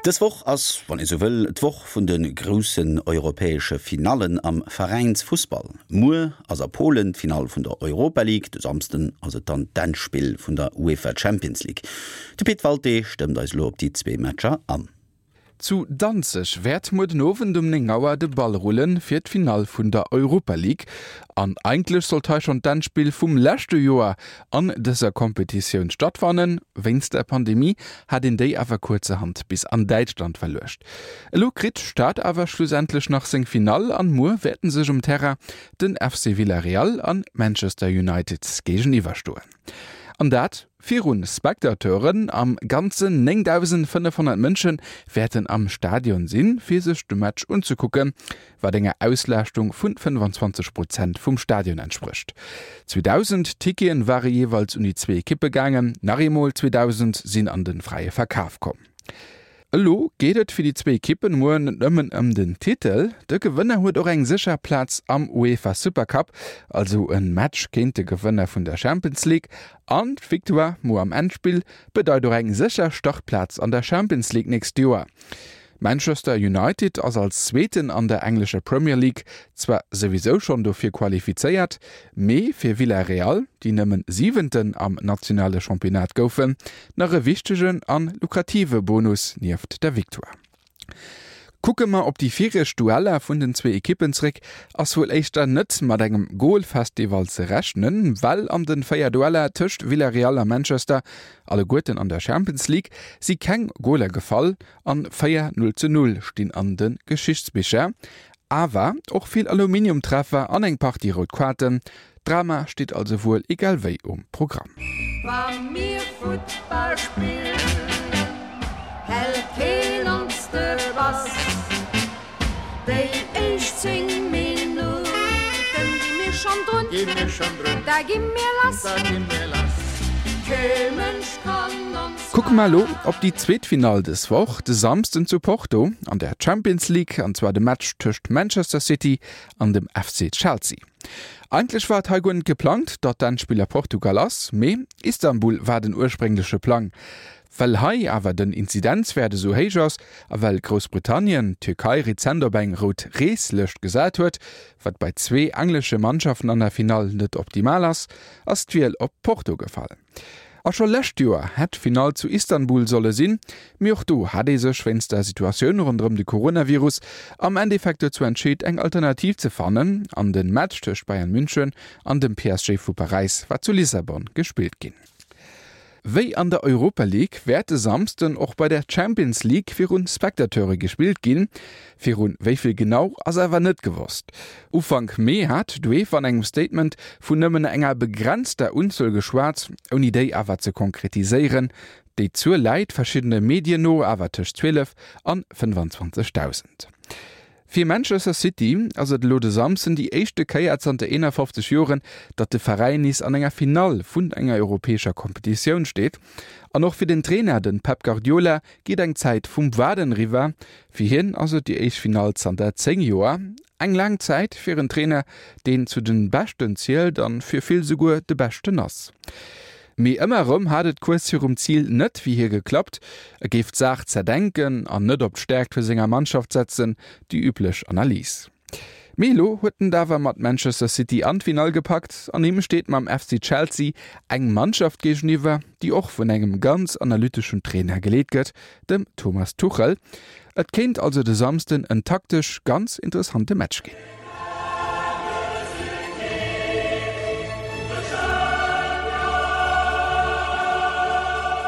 Dës Woch ass, wann ee sou wëll, d'Woch vun de groussen europäesche Finallen am Veräinsfussball. Muer ass a Polen d'Finall vun der Europa League, de Samsden ass et dann d'Endspill vun der UEFA Champions League. De Pit Walté stëmmt eis elo op déi zwee Matcher an. Zu Danzeg wäert muer den Owend um 9 Auer de Ball rullen fir d'Finall vun der Europa League. An eigentlech sollt hei schonn d'Endspill vum leschte Joer an dëser Kompetitioun stattfannen. Wéinst der Pandemie hat een déi awer kuerzerhand bis an Däitschland verluecht. Elo kritt d'Stad awer schlussendlech nach seng Finall an muer wäerten sech um Terrain den FC Villarreal an Manchester United géigeniwwer stoen. An dat Virun Spectateuren, am Ganzen 9.500 Mënsche wäerten am Stadion sinn, fir sech de Match unzekucken, wat enger Auslaaschtung vun 25 Prozent vum Stadion entsprécht. 2.000 Tickete ware jeeweils un déi zwee Ekippe gaangen, nach eemol 2.000 sinn an de fräie Verkaf komm. Elo geet et fir déi zwee Ekippen muer net nëmmen ëm den Titel. De Gewënner huet och eng sécher Plaz am UEFA Supercup, also e Match géint de Gewënner vun der Champions League. An d'Victoire muer am Endspill bedeit och eng sécher Startplaz an der Champions League nächst Joer. Manchester United ass als Zweeten an der englescher Premier League zwar souwisou schonn dofir qualifizéiert, mee fir Villarreal, déi nëmmen Siwenten am nationale Championnat goufen, nach e wichtegen an lukrative Bonus nieft der Victoire. Kucke mer op déi viregt Dueller vun den zwee Ekippen zréck, ass wuel éischter net mat engem Golfestival ze rechnen, well an den 4 Dueller tëscht Villarreal a Manchester, alleguerten an der Champions League, si keng Goler gefall an 4 0 zu 0 stinn an de Geschichtsbicher. Awer och vill Aluminiumtreffer an eng Partie rout Kaarten. Drama steet also wuel egal wéi um Programm. Wa mir Futtball spillen, hält keen ons de Bass. Déi éischt 10 Minutten gi mir schonn drun, da gi mir lass. Kee Mënsch kann ons. Kucke mer elo op déi zweet Finall dës Woch, de Samsden zu Porto an der Champions League, an zwar de Match tëscht Manchester City an dem FC Chelsea. Eigentlech war et hei guer net geplangt, datt d'Endspill a Portugal ass, mee Istanbul war den urspréngleche Plang. Well hei awer den Inzidenzwäert esou héich ass a well Groussbritannien d'Tierkei rezent op eng rout Reeslëscht gesat huet, wat bei zwee englesche Mannschaften an der Finall net optimal ass, ass d'Wiel op Porto gefall. A scho lescht Joer hätt d'Finall zu Istanbul solle sinn, mee och do hat ee sech wéinst der Situatioun ronderëm de Coronavirus am Endeffekt dozou entscheet eng Alternativ ze fannen an de Match tëscht Bayern München an dem PSG vu Paräis war zu Lissabon gespillt ginn. Wéi an der Europa League wäert e Samsden och bei der Champions League virun Spectateure gespillt ginn. Virun wéi vill genau ass awer net gewosst. Ufank Mee hat d'UEFA an engem Statement vun nëmmen enger begrenzter Unzuel geschwat, ouni déi awer ze konkretiséieren. Déi Zuel läit verschiddene Medien no awer tëscht 12 an 25.000. Fir Manchester City ass et elo de Samsden déi éischte Kéier zanter 51 Joren, datt de Veräin nees an enger Finall vun enger europäescher Kompetitioun steet. An och fir den Trainer, de Pep Guardiola, geet eng Zäit vum Waarden eriwwer. Fir hien ass et déi éischt Finall zanter 10 Joer. Eng laang Zäit fir en Trainer, deen zu de Beschten zielt an fir vill souguer de Beschten ass. Mee ëmmer erëm hat et kuerz virum Zil net wéi hie geklappt. E géif d'Saach zerdenken an net op d'Stäerkt vu senger Mannschaft setzen, déi üblech Analys. Mee elo huet en et awer mat Manchester City an d'Finall gepackt an him steet mam FC Chelsea eng Mannschaft géigeniwwer, déi och vun engem ganz analyteschen Trainer geleet gëtt, dem Thomas Tuchel. Et kéint also de Samsden en taktesch ganz interessante Match ginn.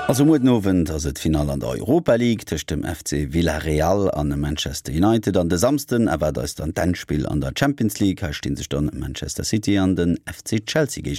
Also muer den Owend ass et d'Finall an der Europa League tëscht dem FC Villarreal an Manchester United an de Samsden erwaart eis dann d'Endspill an der Champions League. Hei sti sech dann Manchester City an den FC Chelsea géigeniwwer.